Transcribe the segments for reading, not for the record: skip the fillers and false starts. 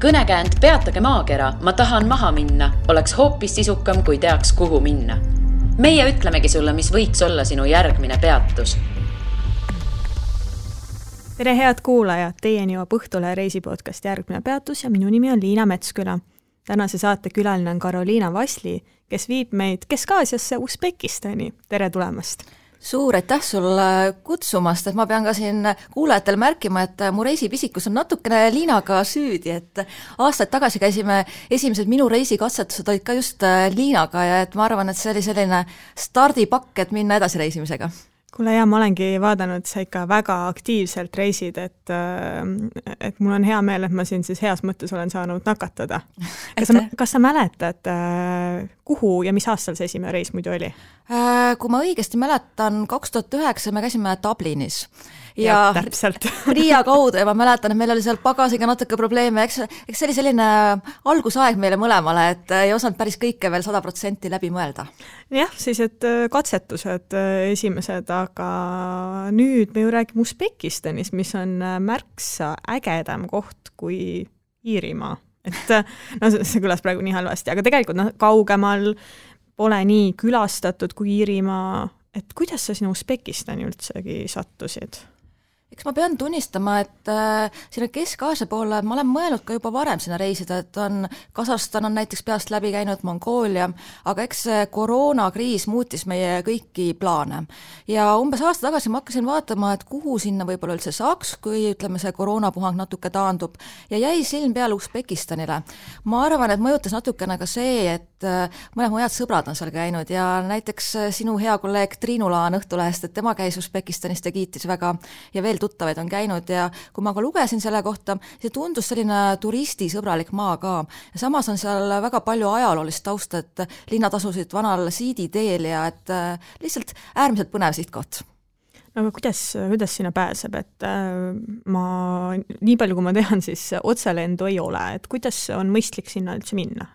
Kõnekäänd Peatage maakera, ma tahan maha minna, oleks hoopis sisukam, kui teaks, kuhu minna. Meie ütlemegi sulle, mis võiks olla sinu järgmine peatus. Tere head kuulajad, teieni jõuab Õhtule reisipodcast Järgmine peatus ja minu nimi on Liina Metsküla. Tänase saate külaline on Karoliina Vasli, kes viib meid Kesk-Aasiasse Usbekistani. Tere tulemast! Suur aitäh sulle kutsumast, et ma pean ka siin kuulajatel märkima, et mu reisipisikus on natukene Liinaga süüdi, et aastaid tagasi käisime esimesed minu reisikatsetused olid ka just Liinaga ja et ma arvan, et see oli selline stardipakk, et minna edasi reisimisega. Kuule ja ma olengi vaadanud, sa ikka väga aktiivselt reisid, et mul on hea meel, et ma siin siis heas mõttes olen saanud nakatada. Kas sa mäletad, kuhu ja mis aastal see esimene reis muidu oli? Kui ma õigesti mäletan, 2009 me käisime Dublinis. Ja täpselt. Riia kaudu ja ma mäletan, et meil oli seal pagasiga natuke probleeme. Eks see oli selline algusaeg meile mõlemale, et ei osanud päris kõike veel 100% läbi mõelda. Jah, siis et katsetused esimesed, aga nüüd me ju räägime Usbekistanis, mis on märksa ägedam koht kui Iirimaa. Et see kõlas praegu nii halvasti, aga tegelikult kaugemal pole nii külastatud kui Iirimaa. Et kuidas sa sinna Usbekistani üldsegi sattusid? Eks ma pean tunnistama, et sinna Kesk-Aasia poole ma olen mõelnud ka juba varem sinna reisida, et Kasahstan on näiteks peast läbi käinud, Mongoolia, aga eks koroonakriis muutis meie kõiki plaane. Ja umbes aasta tagasi ma hakkasin vaatama, et kuhu sinna võib-olla üldse saaks, kui ütleme see koroonapuhang natuke taandub ja jäi silm peale Usbekistanile. Ma arvan, et mõjutas natukene ka see, et mõned mu head sõbrad on seal käinud ja näiteks sinu hea kolleeg Triinu Laan Õhtulehest, et tema käis Usbekistanist ja kiitis väga ja veel tuttavaid on käinud ja kui ma ka lugesin selle kohta, see tundus selline turistisõbralik maa ka. Ja samas on seal väga palju ajaloolist tausta, et linnad asusid vanal siiditeel ja et lihtsalt äärmiselt põnev sihtkoht. No aga kuidas sinna pääseb, et nii palju kui ma tean, siis otselendu ei ole, et kuidas on mõistlik sinna üldse minna?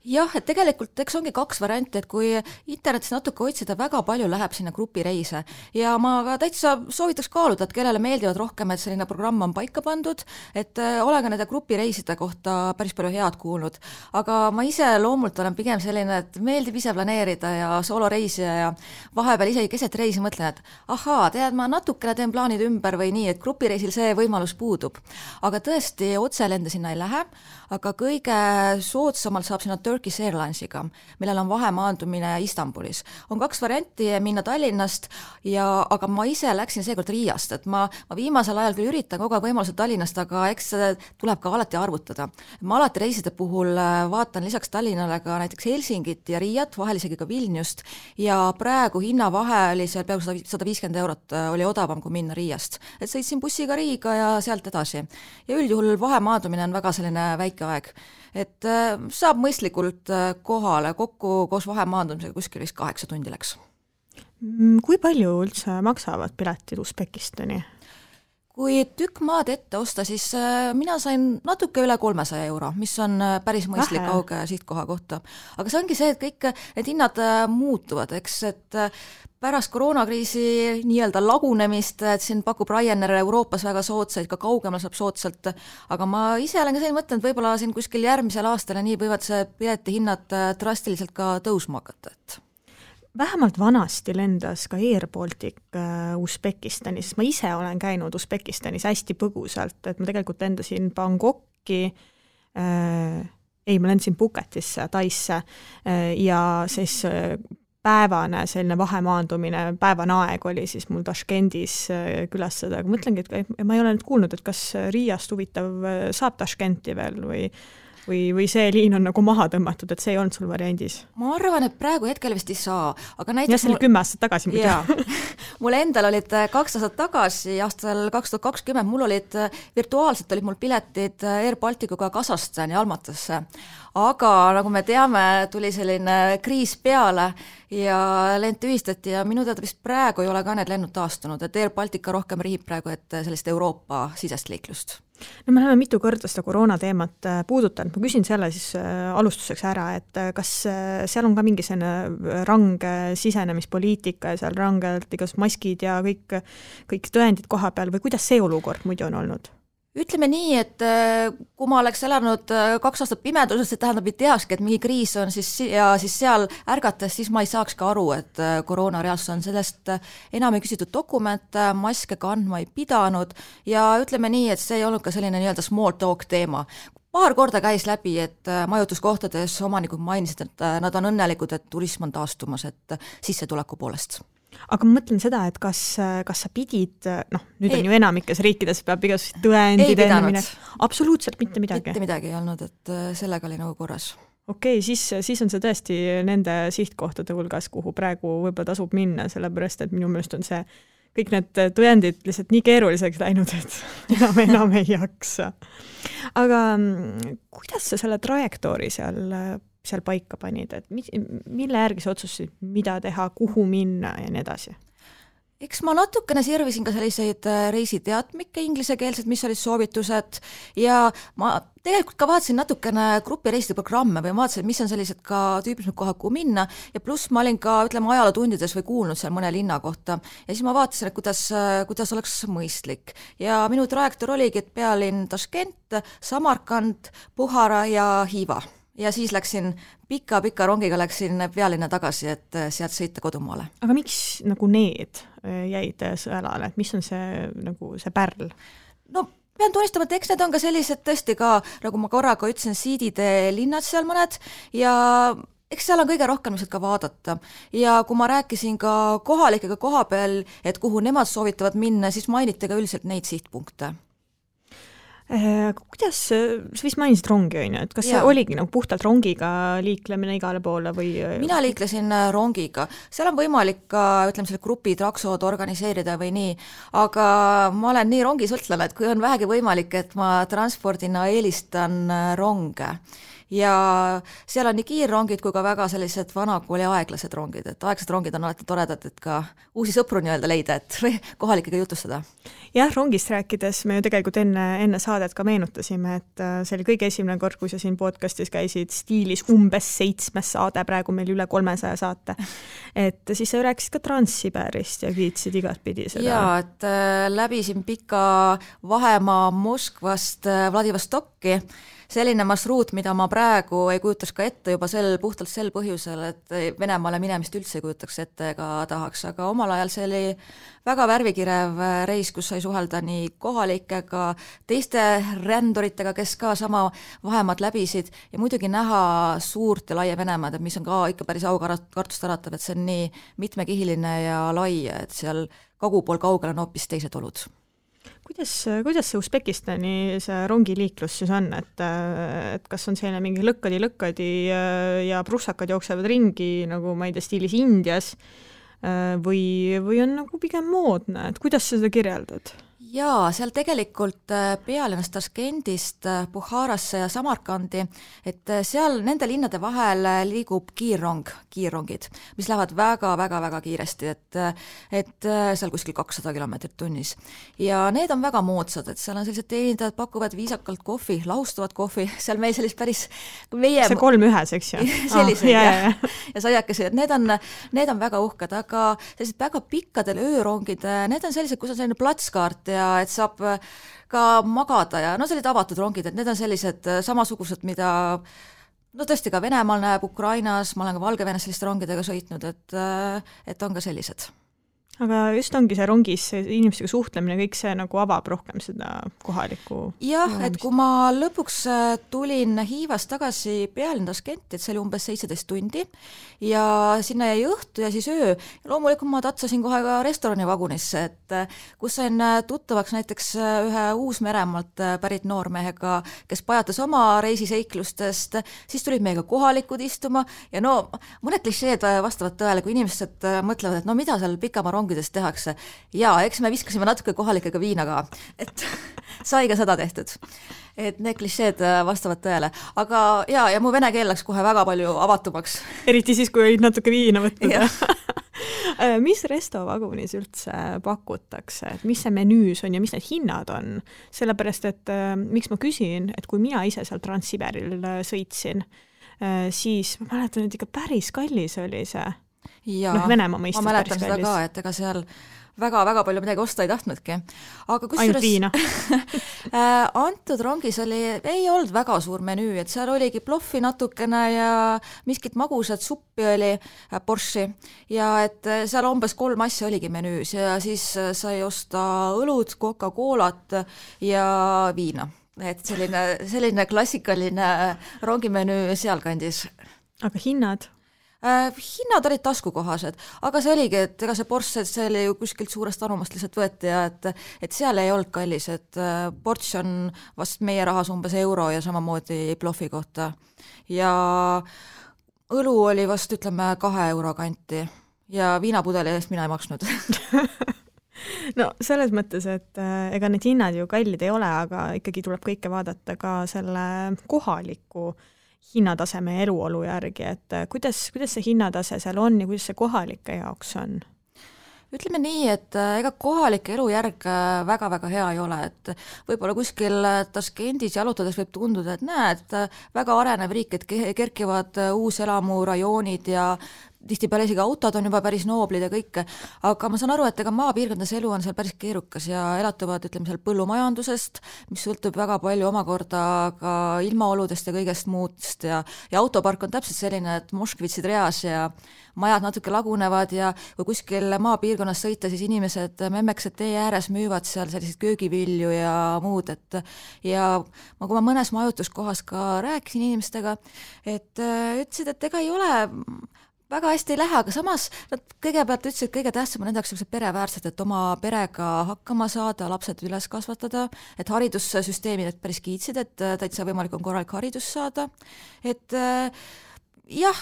Jah, et tegelikult eks ongi kaks varianti, et kui internetis natuke otsida, väga palju läheb sinna grupireise ja ma ka täitsa soovitaks kaaluda, et kellele meeldivad rohkem, et selline programm on paika pandud, et olen ka nende grupireiside kohta päris palju head kuulnud, aga ma ise loomult olen pigem selline, et meeldib ise planeerida ja sooloreisija ja vahepeal isegi keset reisi mõtlen, et ahaa, tead, ma natukene teen plaanid ümber või nii, et grupireisil see võimalus puudub. Aga tõesti, otselende sinna ei lähe, aga kõige soodsamalt saab sinna Turkish Airlinesiga, millel on vahemaandumine Istanbulis. On kaks varianti minna Tallinnast, aga ma ise läksin seekord Riiast, et ma viimasel ajal küll üritan kogu aeg võimalused Tallinnast, aga eks tuleb ka alati arvutada. Ma alati reiside puhul vaatan lisaks Tallinnale ka näiteks Helsingit ja Riiat, vahel isegi ka Vilniust ja praegu hinnavahe oli seal peaaegu 150 eurot, oli odavam kui minna Riiast. Et sõitsin bussiga Riiga ja sealt edasi. Ja üldjuhul vahemaandumine on väga selline väike aeg. Et saab mõistlikult kohale kokku koos vahemaandumisega kuskil 8 tundi läks. Kui palju üldse maksavad piletid Usbekistani? Kui tükk maad ette osta, siis mina sain natuke üle 300 euro, mis on päris mõistlik kauge sihtkoha kohta. Aga see ongi see, et kõik need hinnad muutuvad, eks, et pärast koroonakriisi nii-öelda lagunemist, et siin pakub Ryanair Euroopas väga soodsaid, ka kaugemal saab soodsalt, aga ma ise olen ka selline mõtlen, et võib-olla siin kuskil järgmisel aastal ja nii võivad see pileti hinnad drastiliselt ka tõusma hakata, et vähemalt vanasti lendas ka Air Baltic Usbekistanis, ma ise olen käinud Usbekistanis hästi põgusalt, et ma tegelikult lendasin Bangkoki, ma lendasin Phuketisse, Taisse ja siis päevane selline vahemaandumine, päevane aeg oli siis mul Tashkendis külastada, aga mõtlengi, et ma ei ole nüüd kuulnud, et kas Riiast huvitav saab Tashkenti veel või see liin on nagu maha tõmmatud, et see ei olnud sul variandis? Ma arvan, et praegu hetkel vist ei saa. Aga ja see oli 10 aastat tagasi muidu. Mul endal olid 2 aastat tagasi, aastal 2020, mul olid virtuaalselt olid mul piletid Air Balticuga Kasahstani Almatasse. Aga nagu me teame, tuli selline kriis peale ja lend tühistati ja minu teada vist praegu ei ole ka need lennud taastunud, et Air Baltica rohkem rihib praegu, et sellist Euroopa sisest liiklust. No me oleme mitu korda seda koroona teemat puudutanud. Ma küsin selle siis alustuseks ära, et kas seal on ka mingi selline range sisenemispoliitika ja seal rangelt igas maskid ja kõik tõendid koha peal või kuidas see olukord muidu on olnud? ütleme nii, et kui ma oleks elanud 2 aastat pimeduses, see tähendab, et teakski, et mingi kriis on siis seal ärgates, siis ma ei saaks ka aru, et koroona reaalsus on. Sellest enam ei küsitud dokumente, maske kandma ei pidanud ja ütleme nii, et see ei olnud ka selline nii-öelda small talk teema. Paar korda käis läbi, et majutuskohtades omanikud mainisid, et nad on õnnelikud, et turism on taastumas, et sissetuleku poolest. Aga ma mõtlen seda, et kas sa pidid, nüüd on ju enamikes riikides peab igasugused tõendid enne absoluutselt mitte midagi. Mitte midagi ei olnud, et sellega oli nagu korras. Okei, siis on see tõesti nende sihtkohtade hulgas, kuhu praegu võib-olla tasub minna, sellepärast, et minu meelest on see kõik need tõendid lihtsalt nii keeruliseks läinud, et enam ei jaksa. Aga kuidas sa selle trajektoori seal paika panid, et mille järgi sa otsustasid, mida teha, kuhu minna ja nii edasi? Eks ma natukene sirvisin ka selliseid reisiteatmikke inglisekeelsed, mis olid soovitused ja ma tegelikult ka vaatasin natukene grupireiside programme või vaatasin, mis on sellised ka tüüpilised kohad, kuhu minna ja pluss ma olin ka, ajalootundides või kuulnud seal mõne linna kohta ja siis ma vaatasin, et kuidas oleks mõistlik ja minu trajektoor oligi, et pealinn Taškent, Samarkand, Buhara ja Hiiva. Ja siis läksin pika rongiga pealinna tagasi, et sealt sõita kodumaale. Aga miks nagu need jäid sõelale, et mis on see pärl? No pean tunnistama, et eks need on ka sellised tõesti ka, nagu ma korraga ütlesin, siidide linnad seal mõned ja eks seal on kõige rohkem ka vaadata. Ja kui ma rääkisin ka kohalikega koha peal, et kuhu nemad soovitavad minna, siis mainiti ka üldiselt neid sihtpunkte. Kuidas, sa vist mainisid rongi, on ju, et kas see oligi nagu puhtalt rongiga liiklemine igale poole või? Mina liiklesin rongiga, seal on võimalik ka, selle grupi traksod organiseerida või nii, aga ma olen nii rongisõltlane, et kui on vähegi võimalik, et ma transpordina eelistan ronge. Ja seal on nii kiirrongid kui ka väga sellised vanakooli aeglased rongid, et aeglased rongid on alati toredad, et ka uusi sõpru nii-öelda leida, et kohalikega jutustada. Jah, rongist rääkides me ju tegelikult enne saadet ka meenutasime, et see oli kõige esimene kord, kui sa siin podcastis käisid stiilis umbes 7 saade, praegu meil üle 300 saate. Et siis sa rääkisid ka Transsiberist ja kiitsid igat pidi seda. Jaa, et läbisin pika vahemaa Moskvast Vladivostokki, selline marsruut, mida ma praegu ei kujutaks ka ette juba puhtalt sel põhjusel, et Venemaale minemist üldse ei kujutaks ette ega tahaks, aga omal ajal see oli väga värvikirev reis, kus sai suhelda nii kohalikega, teiste ränduritega, kes ka sama vahemaad läbisid ja muidugi näha suurt ja laia Venemaad, mis on ka ikka päris aukartust äratav, et see on nii mitmekihiline ja lai, et seal kagupool kaugel on hoopis teised olud. Kuidas see Usbekistani see rongiliiklus siis on, et kas on selline mingi lõkkadi ja prussakad jooksevad ringi, nagu ma ei tea, stiilis Indias või on nagu pigem moodne, et kuidas sa seda kirjeldad? Jaa, seal tegelikult pealinnast Taškendist Buharasse ja Samarkandi, et seal nende linnade vahel liigub kiirrongid, mis lähevad väga kiiresti, et seal kuskil 200 kilomeetrit tunnis. Ja need on väga moodsad, et seal on sellised teenindajad, pakuvad viisakalt kohvi, lahustavat kohvi, seal meil sellist päris meie... See 3-1, eks ju? Sellised, ja saiakesi, et need on väga uhked, aga sellised väga pikkadel öörongid, need on sellised, kus on selline platskaart ja et saab ka magada ja sellised avatud rongid, et need on sellised samasugused, mida tõesti ka Venemaal näeb, Ukrainas, ma olen ka Valgevenes selliste rongidega sõitnud, et on ka sellised. Aga just ongi see rongis inimestega suhtlemine, kõik see nagu avab rohkem seda kohalikku... Jah, et kui ma lõpuks tulin Hiivast tagasi pealinn Taškenti, et see oli umbes 17 tundi ja sinna jäi õhtu ja siis öö. Ja loomulikult ma tatsasin kohe ka restoranivagunisse, et kus sain tuttavaks näiteks ühe Uus-Meremaalt pärit noormehega, kes pajatas oma reisiseiklustest, siis tulid meiega kohalikud istuma ja mõned klišeed vastavad tõele, kui inimesed mõtlevad, et mida seal pikama rongides tehakse. Ja eks me viskasime natuke kohalikega viina ka, et sai ka seda tehtud. Et need klišeed vastavad tõele. Aga ja mu vene keel läks kohe väga palju avatumaks. Eriti siis, kui olid natuke viina võtnud. Mis restovagunis üldse pakutakse? Et mis see menüüs on ja mis need hinnad on? Sellepärast, et miks ma küsin, et kui mina ise seal Transsiberil sõitsin, siis ma mäletan, et ikka päris kallis oli see. Ja, Venemaa mõistes ma mäletan seda ka, et ega seal väga-väga palju midagi osta ei tahtnudki. Aga ainult viina? Antud rongis ei olnud väga suur menüü, et seal oligi ploffi natukene ja miskit magusat suppi oli, borši, ja et seal umbes 3 asja oligi menüüs ja siis sai osta õlut, Coca-Colat ja viina. Et selline klassikaline rongimenüü sealkandis. Aga hinnad? Hinnad olid taskukohased, aga see oligi, et ega see ports, see oli ju kuskilt suurest anumast lihtsalt võeti ja et seal ei olnud kallis, et ports on vast meie rahas umbes euro ja samamoodi ploffi kohta. Ja õlu oli vast, ütleme, 2 euro kanti ja viinapudeli eest mina ei maksnud. No selles mõttes, et ega need hinnad ju kallid ei ole, aga ikkagi tuleb kõike vaadata ka selle kohaliku hinnataseme ja eluolu järgi, et kuidas see hinnatase seal on ja kuidas see kohalike jaoks on? Ütleme nii, et ega kohalik elujärg väga-väga hea ei ole, et võib-olla kuskil Taskendis jalutades võib tunduda, et näed, väga arenev riik, et kerkivad uuselamurajoonid ja tihtipeale isegi autod on juba päris nooblid ja kõike, aga ma saan aru, et ega maapiirkondades elu on seal päris keerukas ja elatuvad, ütleme, seal põllumajandusest, mis sõltub väga palju omakorda ka ilmaoludest ja kõigest muust ja autopark on täpselt selline, et moškvitsid reas ja majad natuke lagunevad ja kui kuskil maapiirkonnas sõita, siis inimesed memmeksed tee ääres müüvad seal selliseid köögivilju ja muud, et ja kui ma mõnes majutuskohas ka rääkisin inimestega, et ütlesid, et ega ei ole väga hästi ei lähe, aga samas nad kõigepealt ütlesid, et kõige tähtsam on nendeks pereväärsed, et oma perega hakkama saada, lapsed üles kasvatada, et haridussüsteemid päris kiitsid, et täitsa võimalik on korralik haridus saada, et jah,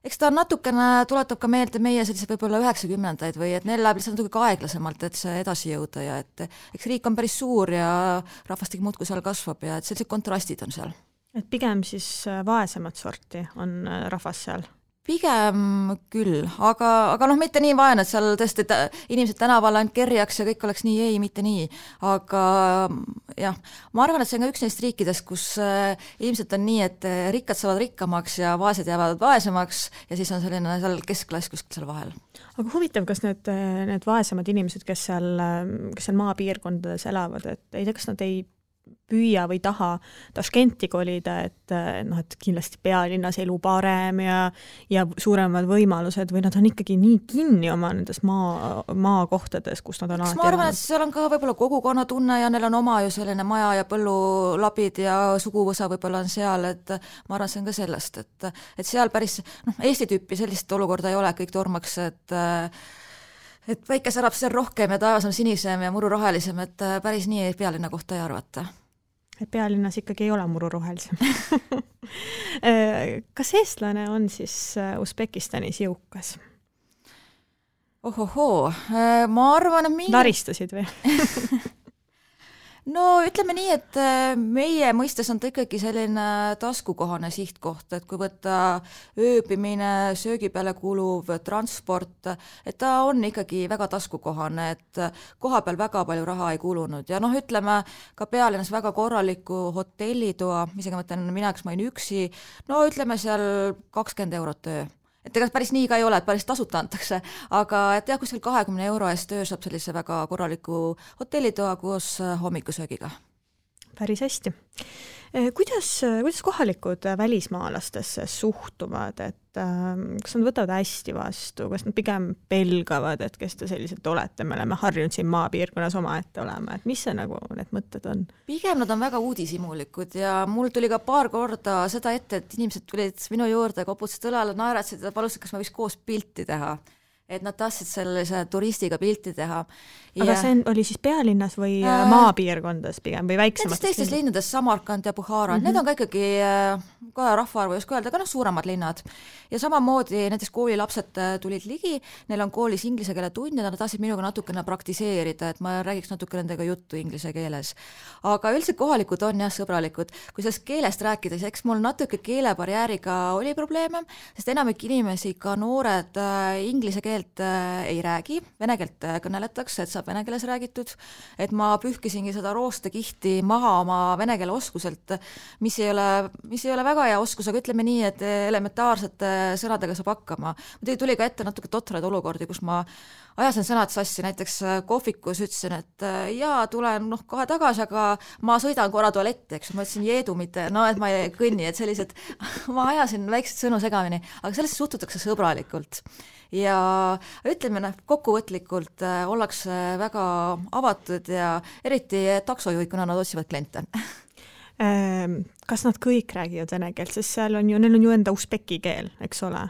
eks ta natukene tuletab ka meelde meie sellise võib-olla 90-ndaid või et neil läheb lihtsalt natuke aeglasemalt, et see edasi jõuda ja et eks riik on päris suur ja rahvastik muudkui seal kasvab ja et sellised kontrastid on seal. Et pigem siis vaesemat sorti on rahvas seal? Pigem küll, aga mitte nii vaene, et seal tõesti inimesed tänaval ainult kerjaks ja kõik oleks nii, mitte nii, aga jah, ma arvan, et see on ka üks neist riikidest, kus ilmselt on nii, et rikkad saavad rikkamaks ja vaesed jäävad vaesemaks ja siis on selline seal keskklass kuskil seal vahel. Aga huvitav, kas need vaesemad inimesed, kes seal maapiirkondades elavad, et ei tea, kas nad ei püüa või taha Taskenti kolida, et kindlasti pealinnas elu parem ja suuremad võimalused või nad on ikkagi nii kinni oma nendes maakohtades, kus nad on alati. Ma arvan, et seal on ka võib-olla kogukonna tunne ja neil on oma ju selline maja ja põllulapid ja suguvõsa võib-olla on seal, et ma arvan, see on ka sellest, et seal päris Eesti tüüpi sellist olukorda ei ole, kõik tormaks, et päike särab seal rohkem ja taevas on sinisem ja muru rohelisem, et päris nii pealinna kohta ei arvata. Et pealinnas ikkagi ei ole muru rohelisem. Kas eestlane on siis Usbekistanis jõukas? Ohohoo, ma arvan, et Laristasid või? No ütleme nii, et meie mõistes on ta ikkagi selline taskukohane sihtkoht, et kui võtta ööbimine, söögi peale kuluv transport, et ta on ikkagi väga taskukohane, et koha peal väga palju raha ei kulunud ja ütleme ka pealinnas väga korraliku hotellitoa, isegi mõtlen mina, kes ma olin üksi, ütleme seal 20 eurot öö. Et ega päris nii ka ei ole, et päris tasuta antakse, aga et jah, kuskil 20 euro eest öö saab sellise väga korraliku hotellitoa koos hommikusöögiga. Päris hästi. Kuidas kohalikud välismaalastesse suhtuvad, et kas nad võtavad hästi vastu, kas nad pigem pelgavad, et kes te sellised olete, me oleme harjunud siin maapiirkonnas omaette olema, et mis see need mõtted on? Pigem nad on väga uudishimulikud ja mul tuli ka paar korda seda ette, et inimesed tulid minu juurde, koputasid õlale, naeratsid ja palusid, kas me võiks koos pilti teha. Et nad tahtsid sellise turistiga pilti teha. Aga see oli siis pealinnas või maapiirkondades pigem või väiksemates? Teistes linnades, Samarkand ja Bukhara, need on ka ikkagi ka rahvaarvu just öelda, aga suuremad linnad. Ja samamoodi näiteks koolilapsed tulid ligi, neil on koolis inglise keele tund ja nad tahtsid minuga natukene praktiseerida, et ma räägiks natuke nendega juttu inglise keeles. Aga üldiselt kohalikud on jah sõbralikud. Kui sellest keelest rääkides, eks mul natuke keelebarjääriga oli probleeme, sest enamik inimesi, ka noored inglise keele keelt ei räägi, vene keelt kõneletakse, et saab vene keeles räägitud, et ma pühkisingi seda roostekihti maha oma vene keele oskuselt, mis ei ole väga hea oskus, aga ütleme nii, et elementaarsete sõnadega saab hakkama. Muidugi tuli ka ette natuke totraid olukordi, kus ma ajasin sõnad sassi, näiteks kohvikus ütlesin, et jaa, tulen kohe tagasi, aga ma sõidan korra tualetti, eks ma ütlesin jeedu, mitte, et ma ei kõnni, et sellised, ma ajasin väikseid sõnu segamini, aga sellesse suhtutakse sõbralikult. Ja ütleme, kokkuvõtlikult ollakse väga avatud ja eriti taksojuhid, kuna nad otsivad kliente. Kas nad kõik räägivad vene keelt, sest neil on ju enda usbeki keel, eks ole?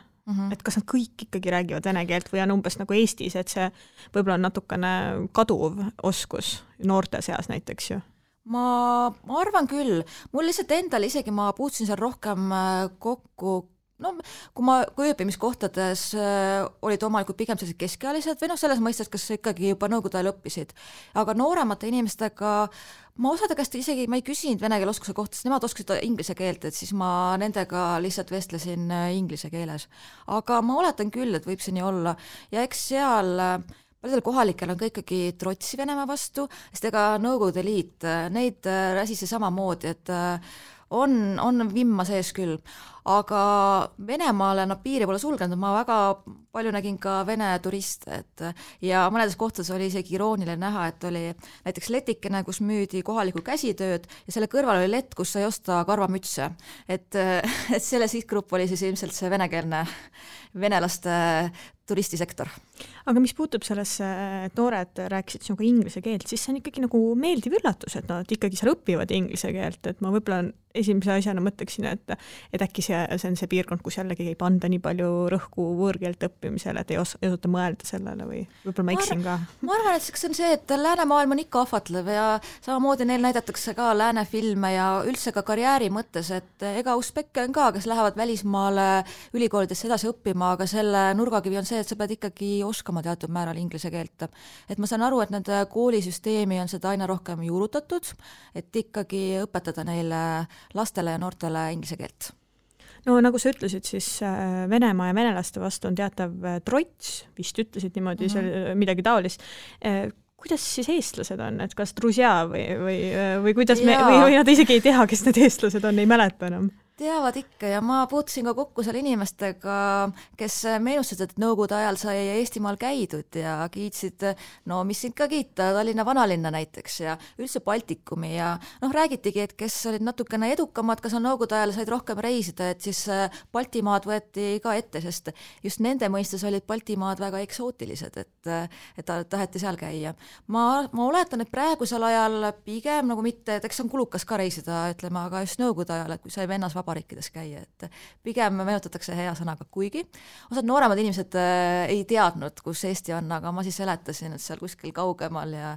Et kas nad kõik ikkagi räägivad vene keelt või on umbes nagu Eestis, et see võib-olla on natukene kaduv oskus noorte seas näiteks ju? Ma arvan küll. Mul lihtsalt endal isegi ma puutusin seal rohkem kokku, kui ööbimiskohtades olid omalikud pigem sellised keskealised või selles mõistes, kas ikkagi juba nõukogude ajal õppisid. Aga nooremate inimestega ma osade käest isegi ma ei küsinud vene keele oskuse kohta, sest nemad oskasid inglise keelt, et siis ma nendega lihtsalt vestlesin inglise keeles. Aga ma oletan küll, et võib see nii olla. Ja eks seal paljudel kohalikel on ka ikkagi trotsi Venemaa vastu, sest ega Nõukogude Liit, neid räsisi samamoodi, et on vimma sees küll. Aga Venemaale nad piiri pole sulgenud, ma väga palju nägin ka vene turiste, ja mõnedes kohtades oli isegi irooniline näha, et oli näiteks letikene, kus müüdi kohalikku käsitööd ja selle kõrval oli lett, kus sai osta karvamütse. Et selle sihtgrupp oli siis ilmselt see venekeelne venelaste turistisektor. Aga mis puutub sellesse, et noored rääkisid sinuga inglise keelt, siis see on ikkagi nagu meeldiv üllatus, et nad ikkagi seal õpivad inglise keelt, et ma võib-olla esimese asjana mõtleksin, et äkki see on see piirkond, kus jällegi ei panda nii palju rõhku võõrkeelt õppimisele, et ei osuta mõelda sellele või võib-olla ma eksin ka? Ma arvan, et see on see, et läänemaailm on ikka ahvatlev ja samamoodi neil näidatakse ka läänefilme ja üldse ka karjääri mõttes, et ega usbekke on ka, kes lähevad välismaale ülikoolidesse edasi õppima, aga selle nurgakivi on see, et sa pead ikkagi oskama teatud määral inglise keelt. Et ma saan aru, et nende koolisüsteemi on seda aina rohkem juurutatud, et ikkagi õpetada neile lastele ja noortele inglise keelt. No nagu sa ütlesid, siis Venemaa ja venelaste vastu on teatav trots, vist ütlesid niimoodi midagi taolist. Kuidas siis eestlased on, et kas drusja või kuidas või nad isegi ei tea, kes need eestlased on, ei mäleta enam? Teavad ikka ja ma puutusin ka kokku seal inimestega, kes meenustasid, et Nõukogude ajal sai Eestimaal käidud ja kiitsid, mis siin ka kiita, Tallinna vanalinna näiteks ja üldse Baltikumi ja räägitigi, et kes olid natukene edukamad, kas on Nõukogude ajal said rohkem reisida, et siis Baltimaad võeti ka ette, sest just nende mõistes olid Baltimaad väga eksootilised, et taheti seal käia. Ma oletan, et praegusel ajal pigem nagu mitte, et eks on kulukas ka reisida, ütleme, aga just Nõukogude ajal, et kui sai vennas vabariikides käia, et pigem meenutatakse hea sõnaga, kuigi osad nooremad inimesed ei teadnud, kus Eesti on, aga ma siis seletasin, et seal kuskil kaugemal ja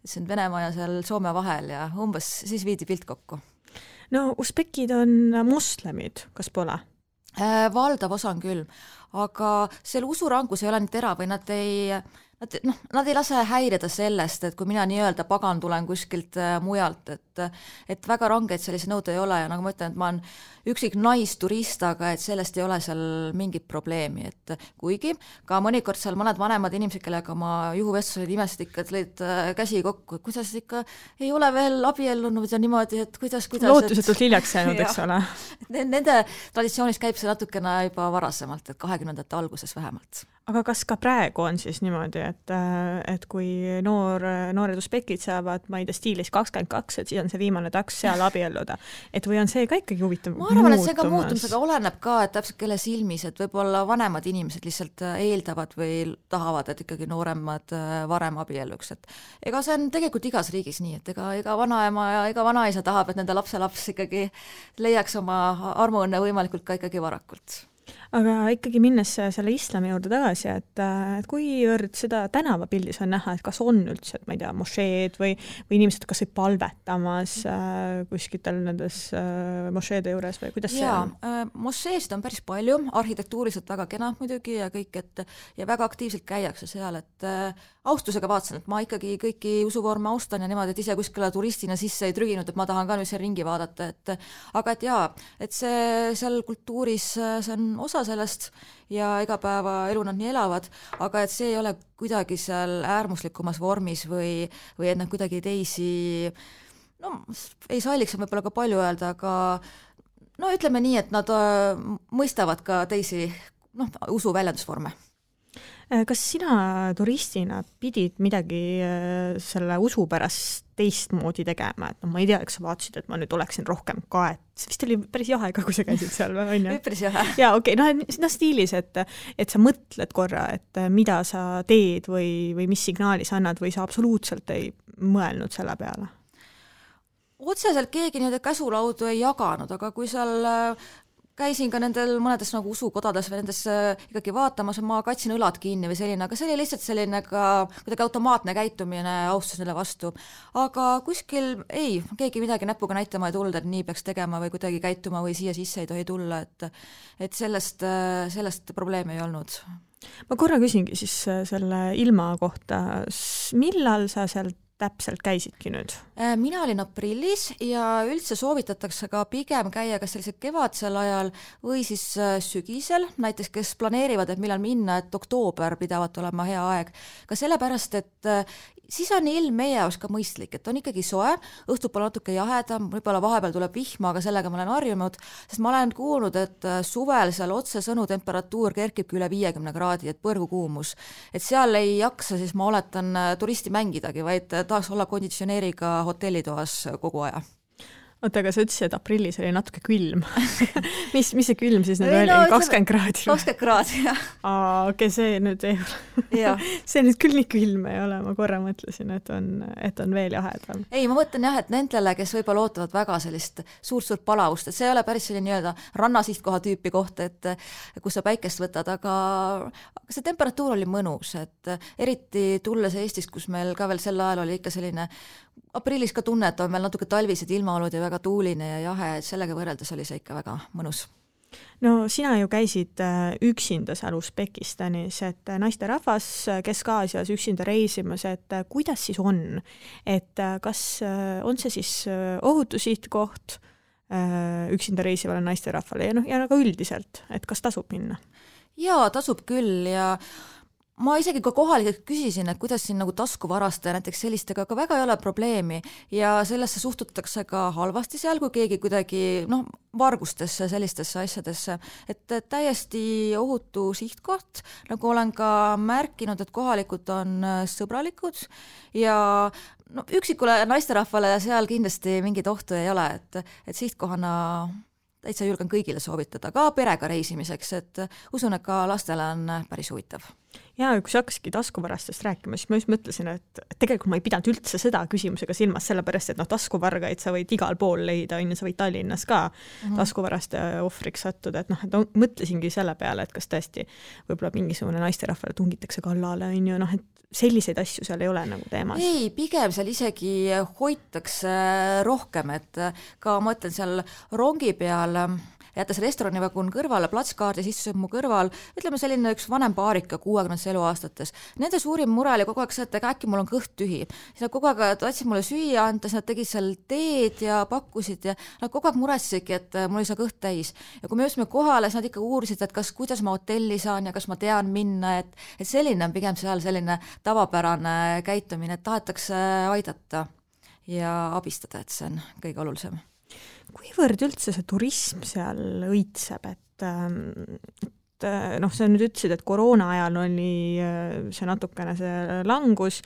siin Venemaa ja seal Soome vahel ja umbes siis viidi pilt kokku. No usbekid on moslemid, kas pole? Valdav osa on küll, aga seal usurangus ei ole nii terav või nad ei lase häirida sellest, et kui mina nii-öelda pagan tulen kuskilt mujalt, et väga rangeid sellise nõude ei ole ja nagu ma ütlen, et ma olen üksik naisturist, aga et sellest ei ole seal mingit probleemi, et kuigi ka mõnikord seal mõned vanemad inimesed, kellega ma juhuvestlused imesid ikka, et lõid käsi kokku, et kuidas ikka ei ole veel abiellunud ja niimoodi, et kuidas lootusetult hiljaks jäänud, eks ole. Nende traditsioonis käib see natukene juba varasemalt, et 20. alguses vähemalt. Aga kas ka praegu on siis niimoodi, et kui noored usbekid saavad, ma ei tea, stiilis 22, et siis on see viimane taks seal abielluda, et või on see ka ikkagi huvitav? Ma arvan, et see ka muutumisega oleneb ka, et täpselt kelle silmis, et võib-olla vanemad inimesed lihtsalt eeldavad või tahavad, et ikkagi nooremad varem abielluks, et ega see on tegelikult igas riigis nii, et ega vanaema ja ega vanaisa tahab, et nende lapselaps ikkagi leiaks oma armuõnne võimalikult ka ikkagi varakult. Aga ikkagi minnes selle islami juurde tagasi, et kuivõrd seda tänavapildis on näha, et kas on üldse, et ma ei tea, mošeed või inimesed kas või palvetamas kuskitel nendes mošeede juures või kuidas see on? Mošeesid on päris palju, arhitektuuriselt väga kena muidugi ja kõik, ja väga aktiivselt käiakse seal, et austusega vaatasin, et ma ikkagi kõiki usuvorme austan ja niimoodi, et ise kuskile turistina sisse ei trüginud, et ma tahan ka nüüd seal ringi vaadata, aga et jaa, et see seal kultuuris, see on osa sellest ja igapäevaelu nad nii elavad, aga et see ei ole kuidagi seal äärmuslikumas vormis või et nad kuidagi teisi, no ei salliks võib-olla ka palju öelda, aga no ütleme nii, et nad mõistavad ka teisi usu väljendusvorme. Kas sina turistina pidid midagi selle usu pärast teistmoodi tegema, et ma ei tea, eks sa vaatasid, et ma nüüd oleksin rohkem kaet, see vist oli päris jahe ka, kui sa käisid seal või on ju? Päris jahe. Jaa, okei, stiilis, et sa mõtled korra, et mida sa teed või mis signaali sa annad või sa absoluutselt ei mõelnud selle peale? Otseselt keegi nii-öelda käsulaudu ei jaganud, aga kui seal käisin ka nendel mõnedes nagu usukodades või nendes ikkagi vaatamas, ma katsin õlad kinni või selline, aga see oli lihtsalt selline ka kuidagi automaatne käitumine austus neile vastu. Aga kuskil keegi midagi näpuga näitama ei tulnud, et nii peaks tegema või kuidagi käituma või siia sisse ei tohi tulla, et sellest probleemi ei olnud. Ma korra küsingi siis selle ilma kohta, millal sa sealt täpselt käisidki nüüd? Mina olin aprillis ja üldse soovitatakse ka pigem käia kas sellisel kevadsel ajal või siis sügisel, näiteks kes planeerivad, et millal minna, et oktoober pidavat olema hea aeg. Ka sellepärast, et siis on ilm meie jaoks ka mõistlik, et on ikkagi soe, õhtupool natuke jahedam, võib-olla vahepeal tuleb vihma, aga sellega ma olen harjunud, sest ma olen kuulnud, et suvel seal otsesõnu temperatuur kerkibki üle 50 kraadi, et põrgukuumus. Et seal ei jaksa, siis ma oletan turisti mängidagi, vaid tahaks olla konditsioneeriga hotellitoas kogu aja. Oota, aga sa ütlesid, et aprillis oli natuke külm. mis see külm siis nüüd oli? 20 kraadi? 20 kraadi, jah. Okei, see nüüd ei ole. See nüüd küll nii külm ei ole, ma korra mõtlesin, et on veel jahedam. Ei, ma mõtlen jah, et nendele, kes võib-olla ootavad väga sellist suurt palavust, et see ei ole päris selline nii-öelda rannasihtkoha tüüpi koht, et kus sa päikest võtad, aga see temperatuur oli mõnus, et eriti tulles Eestist, kus meil ka veel sel ajal oli ikka selline aprillis ka tunne, et on meil natuke talvised ilmaolud ja väga tuuline ja jahe, et sellega võrreldes oli see ikka väga mõnus. No sina ju käisid üksinda seal Usbekistanis, et naisterahvas Kesk-Aasias üksinda reisimas, et kuidas siis on? Et kas on see siis ohutusihtkoht üksinda reisivale naisterahvale ja ka üldiselt, et kas tasub minna? Jaa, tasub küll ja ma isegi ka kohalikelt küsisin, et kuidas siin nagu taskuvaraste näiteks sellistega ka väga ei ole probleemi ja sellesse suhtutakse ka halvasti seal, kui keegi kuidagi vargustesse, sellistesse asjadesse, et täiesti ohutu sihtkoht, nagu olen ka märkinud, et kohalikud on sõbralikud ja üksikule naisterahvale seal kindlasti mingit ohtu ei ole, et sihtkohana täitsa julgen kõigile soovitada, ka perega reisimiseks, et usun, et ka lastele on päris huvitav. Ja kui sa hakkasidki taskuvarastest rääkima, siis ma just mõtlesin, et tegelikult ma ei pidanud üldse seda küsimusega silmas, sellepärast, et taskuvargaid sa võid igal pool leida, sa võid Tallinnas ka taskuvaraste ohvriks sattuda, et mõtlesingi selle peale, et kas tõesti võib-olla mingisugune naisterahvale tungitakse kallale, et selliseid asju seal ei ole nagu teemas. Ei, pigem seal isegi hoitakse rohkem, et ka ma ütlen seal rongi peal jättes restoranivagun kõrvale, platskaardis istuseb mu kõrval, ütleme selline üks vanem paarika 60 eluaastates. Nende suurim mure oli kogu aeg see, et äkki mul on kõht tühi. Siis nad kogu aeg tahtsid mulle süüa anda, siis nad tegid seal teed ja pakkusid ja nad kogu aeg muressisidki, et mul ei saa kõht täis. Ja kui me jõudsime kohale, siis nad ikka uurisid, et kuidas ma hotelli saan ja kas ma tean minna, et selline on pigem seal selline tavapärane käitumine, et tahetakse aidata ja abistada, et see on kõige olulisem. Kuivõrd üldse see turism seal õitseb, et sa nüüd ütlesid, et koroona ajal oli see natukene see langus,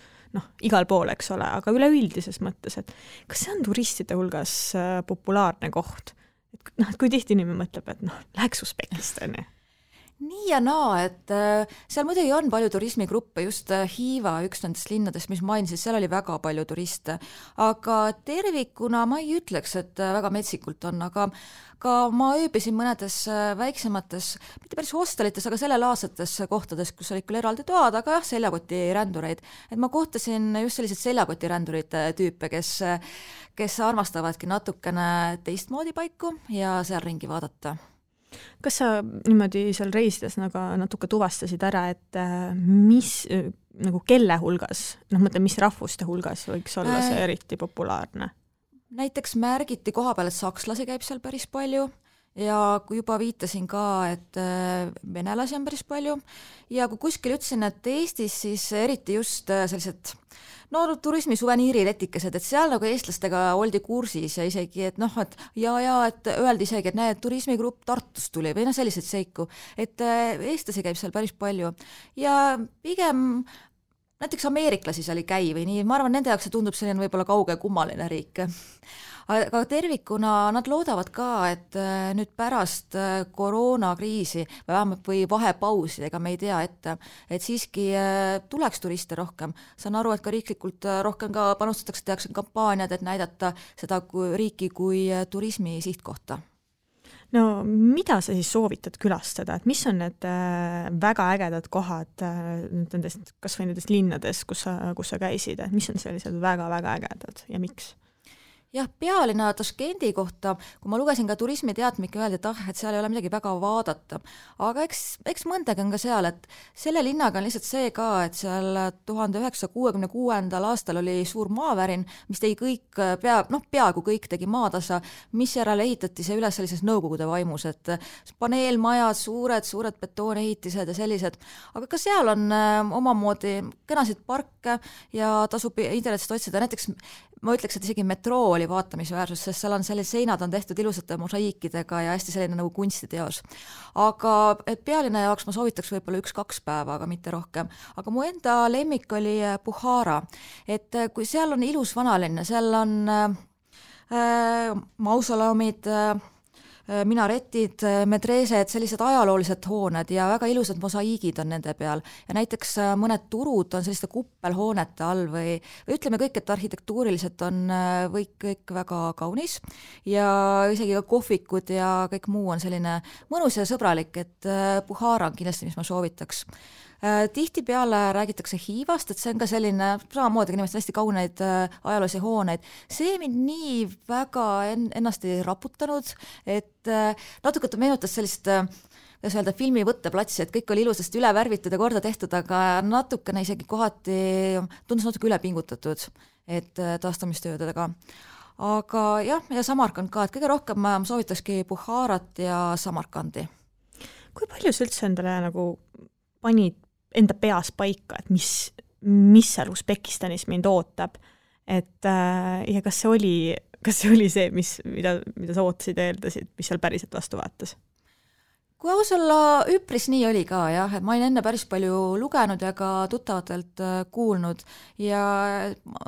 igal pool, eks ole, aga üleüldises mõttes, et kas see on turistide hulgas populaarne koht? Et kui tihti inimene mõtleb, et läheks Usbekistani? Nii ja naa, et seal muidugi on palju turismigruppe, just Hiiva, üks nendest linnadest, mis mainisid, seal oli väga palju turiste, aga tervikuna ma ei ütleks, et väga metsikult on, aga ka ma ööbisin mõnedes väiksemates, mitte päris hostelites, aga sellelaadsetes kohtades, kus olid küll eraldi toad, aga jah, seljakotirändureid. Et ma kohtasin just sellised seljakotirändurite tüüpe, kes armastavadki natukene teistmoodi paiku ja seal ringi vaadata. Kas sa niimoodi seal reisides natuke tuvastasid ära, et mis, nagu kelle hulgas, mis rahvuste hulgas võiks olla see eriti populaarne? Näiteks märgiti koha peal, et sakslasi käib seal päris palju ja kui juba viitasin ka, et venelasi on päris palju ja kui kuskil ütlesin, et Eestis siis eriti just sellised turismi suveniiriletikesed, et seal nagu eestlastega oldi kursis ja isegi, et et öeldi isegi, et näed, turismigrupp Tartust tuli või selliseid seiku, et eestlasi käib seal päris palju ja pigem näiteks ameeriklasi seal ei käi või nii, ma arvan, nende jaoks see tundub selline võib-olla kauge kummaline riik. Aga tervikuna nad loodavad ka, et nüüd pärast koroonakriisi või vahepausi, ega me ei tea ette, et siiski tuleks turiste rohkem. Saan aru, et ka riiklikult rohkem ka panustatakse, tehakse kampaaniad, et näidata seda riiki kui turismi sihtkohta. No mida sa siis soovitad külastada, et mis on need väga ägedad kohad nendest, kas või nendest linnades, kus sa käisid, et mis on sellised väga-väga ägedad ja miks? Jah, pealinna Taškendi kohta, kui ma lugesin ka turismiteatmike, öeldi, et seal ei ole midagi väga vaadata. Aga eks mõndagi on ka seal, et selle linnaga on lihtsalt see ka, et seal 1966. aastal oli suur maavärin, mis tegi kõik, peaaegu kõik tegi maatasa, mis järel ehitati see üles sellises nõukogude vaimus, et paneelmajad, suured betoonehitised ja sellised. Aga ka seal on omamoodi kenasid parke ja tasub internetist otsida, näiteks ma ütleks, et isegi metroo oli vaatamisväärsus, sest seal on sellised seinad on tehtud ilusate mosaiikidega ja hästi selline nagu kunstiteos. Aga et pealinna jaoks ma soovitaks võib-olla 1-2 päeva, aga mitte rohkem. Aga mu enda lemmik oli Bukhara, et kui seal on ilus vanalinna, seal on mausoleumid, minaretid, medreesed, sellised ajaloolised hooned ja väga ilusad mosaiigid on nende peal. Ja näiteks mõned turud on selliste kuppelhoonete all või ütleme kõik, et arhitektuuriliselt on kõik väga kaunis ja isegi ka kohvikud ja kõik muu on selline mõnus ja sõbralik, et Bukhara on kindlasti, mis ma soovitaks. Tihtipeale räägitakse Hiivast, et see on ka selline, samamoodi inimesed hästi kauneid ajaloolisi hooneid. See mind nii väga ennast ei raputanud, et natuke meenutas sellist filmi võtteplatsi, et kõik oli ilusasti üle värvitud ja korda tehtud, aga natukene isegi kohati tundus natuke üle pingutatud, et taastamistöödega. Aga jah, ja Samarkand ka, et kõige rohkem ma soovitakski Bukharat ja Samarkandi. Kui palju sa üldse endale nagu panid enda peas paika, et mis seal Usbekistanis mind ootab, et ja kas see oli see, mida sa ootasid ja eeldasid, mis seal päriselt vastu vaatas? Kui aus olla, üpris nii oli ka, jah, et ma olin enne päris palju lugenud ja ka tuttavatelt kuulnud ja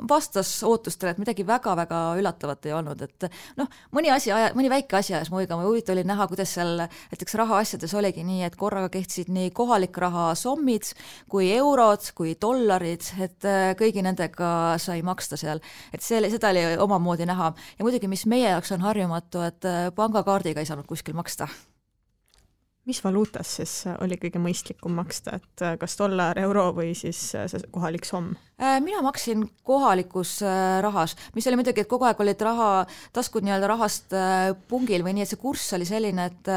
vastas ootustele, et midagi väga-väga üllatavat ei olnud, et mõni väike asi ajas muiga, ma huvitav oli näha, kuidas seal näiteks rahaasjades oligi nii, et korraga kehtisid nii kohalik raha sommid, kui eurod, kui dollarid, et kõigi nendega sai maksta seal, et seda oli omamoodi näha ja muidugi, mis meie jaoks on harjumatu, et pangakaardiga ei saanud kuskil maksta. Mis valuutas siis oli kõige mõistlikum maksta, et kas dollar, euro või siis see kohalik somm? Mina maksin kohalikus rahas, mis oli muidugi, et kogu aeg olid taskud nii-öelda rahast pungil või nii, et see kurss oli selline, et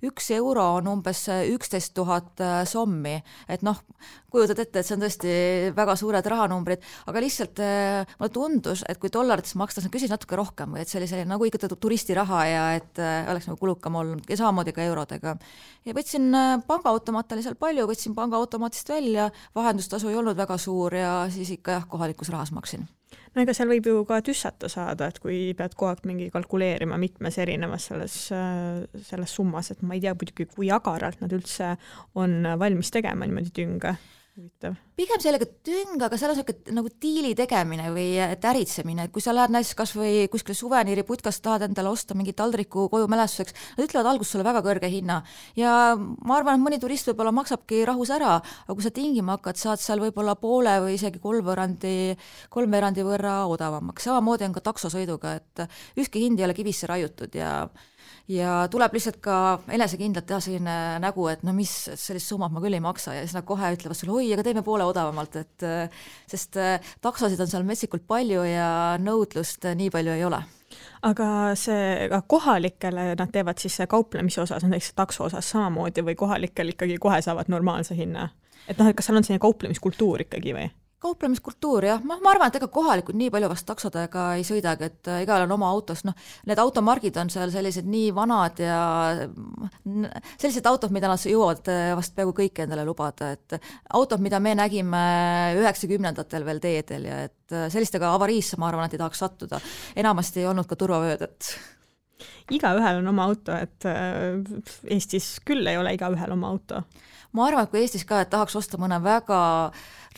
1 euro on umbes 11 000 sommi, et kujutad ette, et see on tõesti väga suured rahanumbrid, aga lihtsalt mulle tundus, et kui dollarites makstas, küsis natuke rohkem või et see oli selline nagu ikka turistiraha ja et oleks nagu kulukam olnud ja samamoodi ka eurodega. Ja võtsin pangaautomaat oli seal palju, võtsin pangaautomaatist välja, vahendustasu ei olnud väga suur ja siis ikka kohalikus rahas maksin. No ega seal võib ju ka tüssata saada, et kui pead kogu aeg mingi kalkuleerima mitmes erinevas selles summas, et ma ei tea muidugi, kui agaralt nad üldse on valmis tegema niimoodi tünga. Pigem sellega tüng, aga seal on nagu diili tegemine või äritsemine, et kui sa lähed näiteks kas või kuskile suveniiri putkast tahad endale osta mingi taldriku koju mälestuseks, nad ütlevad alguses sulle väga kõrge hinna ja ma arvan, et mõni turist võib-olla maksabki rahus ära, aga kui sa tingima hakkad, saad seal võib-olla poole või isegi kolmveerandi võrra odavamaks. Samamoodi on ka taksosõiduga, et ükski hind ei ole kivisse raiutud ja tuleb lihtsalt ka enesekindlalt teha selline nägu, et mis sellist summat ma küll ei maksa ja siis nad kohe ütlevad sulle, oi, aga teeme poole odavamalt, sest taksosid on seal metsikult palju ja nõudlust nii palju ei ole. Aga see kohalikele nad teevad siis kauplemise osas, näiteks takso osas samamoodi või kohalikel ikkagi kohe saavad normaalse hinna? Et kas seal on selline kauplemiskultuur ikkagi või? kauplemiskultuur, jah, ma arvan, et ega kohalikud nii palju vast taksodega ei sõidagi, et igal on oma autos, need automargid on seal sellised nii vanad ja sellised autod, mida nad jõuavad vast peaaegu kõik endale lubada, et autod, mida me nägime 90-ndatel veel teedel ja et sellistega avariisse, ma arvan, et ei tahaks sattuda. Enamasti ei olnud ka turvavööd, et igaühel on oma auto, et Eestis küll ei ole igaühel oma auto. Ma arvan, et kui Eestis ka, et tahaks osta mõne väga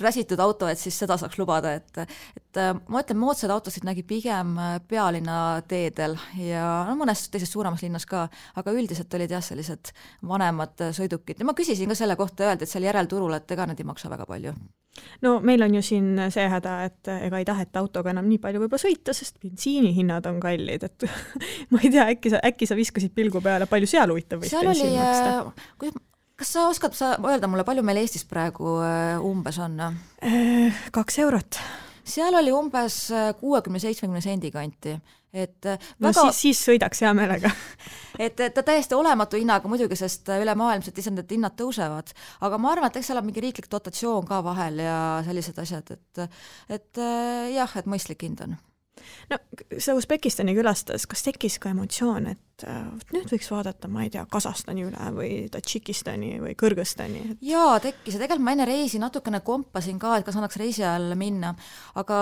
räsitud auto, et siis seda saaks lubada, et ma ütlen, moodsad autosid nägi pigem pealinna teedel ja mõnes teises suuremas linnas ka, aga üldiselt olid jah sellised vanemad sõidukid ja ma küsisin ka selle kohta, öeldi, et seal järelturul, et ega need ei maksa väga palju. No meil on ju siin see häda, et ega ei taheta autoga enam nii palju võib-olla sõita, sest bensiinihinnad on kallid, et ma ei tea, äkki sa viskasid pilgu peale, palju seal huvitav võis bensiin maksta? Kas sa oskad öelda mulle, palju meil Eestis praegu umbes on? 2 eurot. Seal oli umbes 60-70 sendi kanti. Et no väga... siis sõidaks hea meelega. et ta täiesti olematu hinnaga muidugi, sest üle maailmselt ise need hinnad tõusevad. Aga ma arvan, et eks seal on mingi riiklik dotatsioon ka vahel ja sellised asjad, et jah, et mõistlik hind on. No, sa Usbekistani külastas, kas tekkis ka emotsioon, et nüüd võiks vaadata, ma ei tea, Kasahstani üle või Tadžikistani või Kõrgõzstani? Jaa, tekkis ja tegelikult ma enne reisi natukene kompasin ka, et kas annaks reisi all minna, aga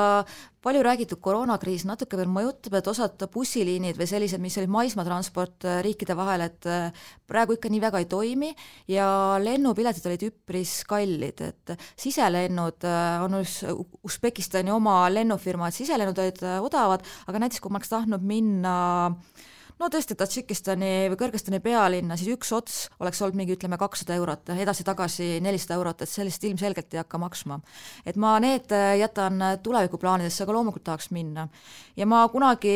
palju räägitud koroonakriis natuke veel mõjutab, et osad bussiliinid või sellised, mis olid maismaatransport riikide vahel, et praegu ikka nii väga ei toimi ja lennupiletid olid üpris kallid, et siselennud on Usbekistani oma lennufirma, et siselennud olid odavad, aga näiteks kui ma oleks tahtnud minna no tõesti Tadžikistani või Kõrgõzstani pealinna, siis üks ots oleks olnud mingi, ütleme, 200 eurot, edasi-tagasi 400 eurot, et sellist ilmselgelt ei hakka maksma. Et ma need jätan tulevikuplaanidesse, aga loomulikult tahaks minna. Ja ma kunagi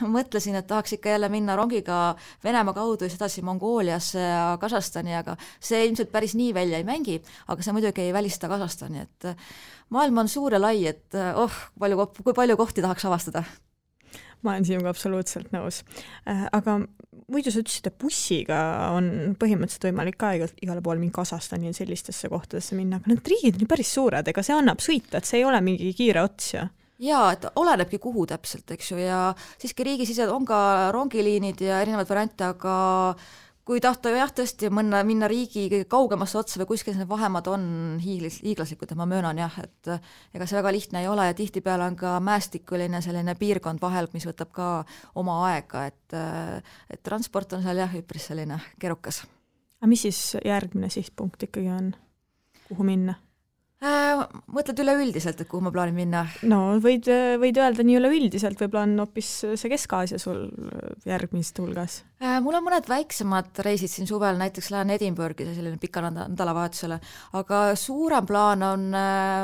mõtlesin, et tahaks ikka jälle minna rongiga Venemaa kaudu ja sedasi Mongooliasse ja Kasahstani, aga see ilmselt päris nii välja ei mängi, aga see muidugi ei välista Kasahstani, et maailm on suur ja lai, et kui palju kohti tahaks avastada. Ma olen sinuga absoluutselt nõus. Aga muidu sa ütlesid, et bussiga on põhimõtteliselt võimalik ka igale pool mingi Kasahstani ja sellistesse kohtadesse minna, aga need riigid on ju päris suured, ega see annab sõita, et see ei ole mingi kiire ots ja? Jaa, et olenebki kuhu täpselt, eks ju, ja siiski riigisised on ka rongiliinid ja erinevad variante, aga kui tahta jah tõesti minna riigi kõige kaugemasse otsa või kuskil need vahemad on hiiglaslikud, et ma möönan jah, et ega see väga lihtne ei ole ja tihtipeale on ka mäestikuline selline piirkond vahel, mis võtab ka oma aega, et transport on seal jah üpris selline keerukas. Aga mis siis järgmine sihtpunkt ikkagi on? Kuhu minna? Mõtled üleüldiselt, et kuhu ma plaanin minna? No võid öelda nii üleüldiselt, võib-olla on hoopis see Kesk-Aasia sul järgmist hulgas? Mul on mõned väiksemad reisid siin suvel, näiteks lähen Edinburghi selline pika nädalavahetusele, aga suurem plaan on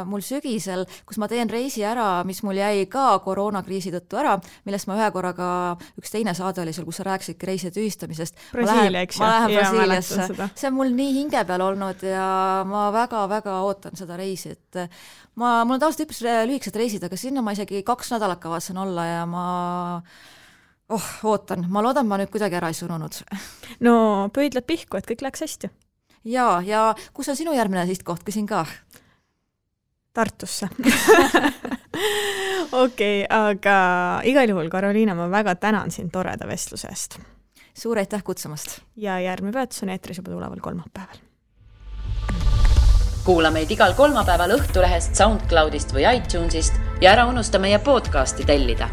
mul sügisel, kus ma teen reisi ära, mis mul jäi ka koroonakriisi tõttu ära, millest ma ühe korraga, üks teine saade oli seal, kus sa rääkisidki reiside tühistamisest. Brasiilia, eks ju? Ma lähen Brasiiliasse. See on mul nii hinge peal olnud ja ma väga-väga ootan seda reisi, et mul on tavaliselt üpris lühikesed reisid, aga sinna ma isegi 2 nädalat kavatsen olla ja ma ootan. Ma loodan, ma nüüd kuidagi ära ei surunud. No pöidlad pihku, et kõik läks hästi. Ja kus on sinu järgmine sihtkoht, küsin ka? Tartusse. Okei, aga igal juhul, Karoliina, ma väga tänan sind toreda vestluse eest. Suur aitäh kutsumast. Ja järgmine peatus on eetris juba tuleval kolmapäeval. Kuula meid igal kolmapäeval Õhtulehest, SoundCloudist või iTunesist ja ära unusta meie podcasti tellida.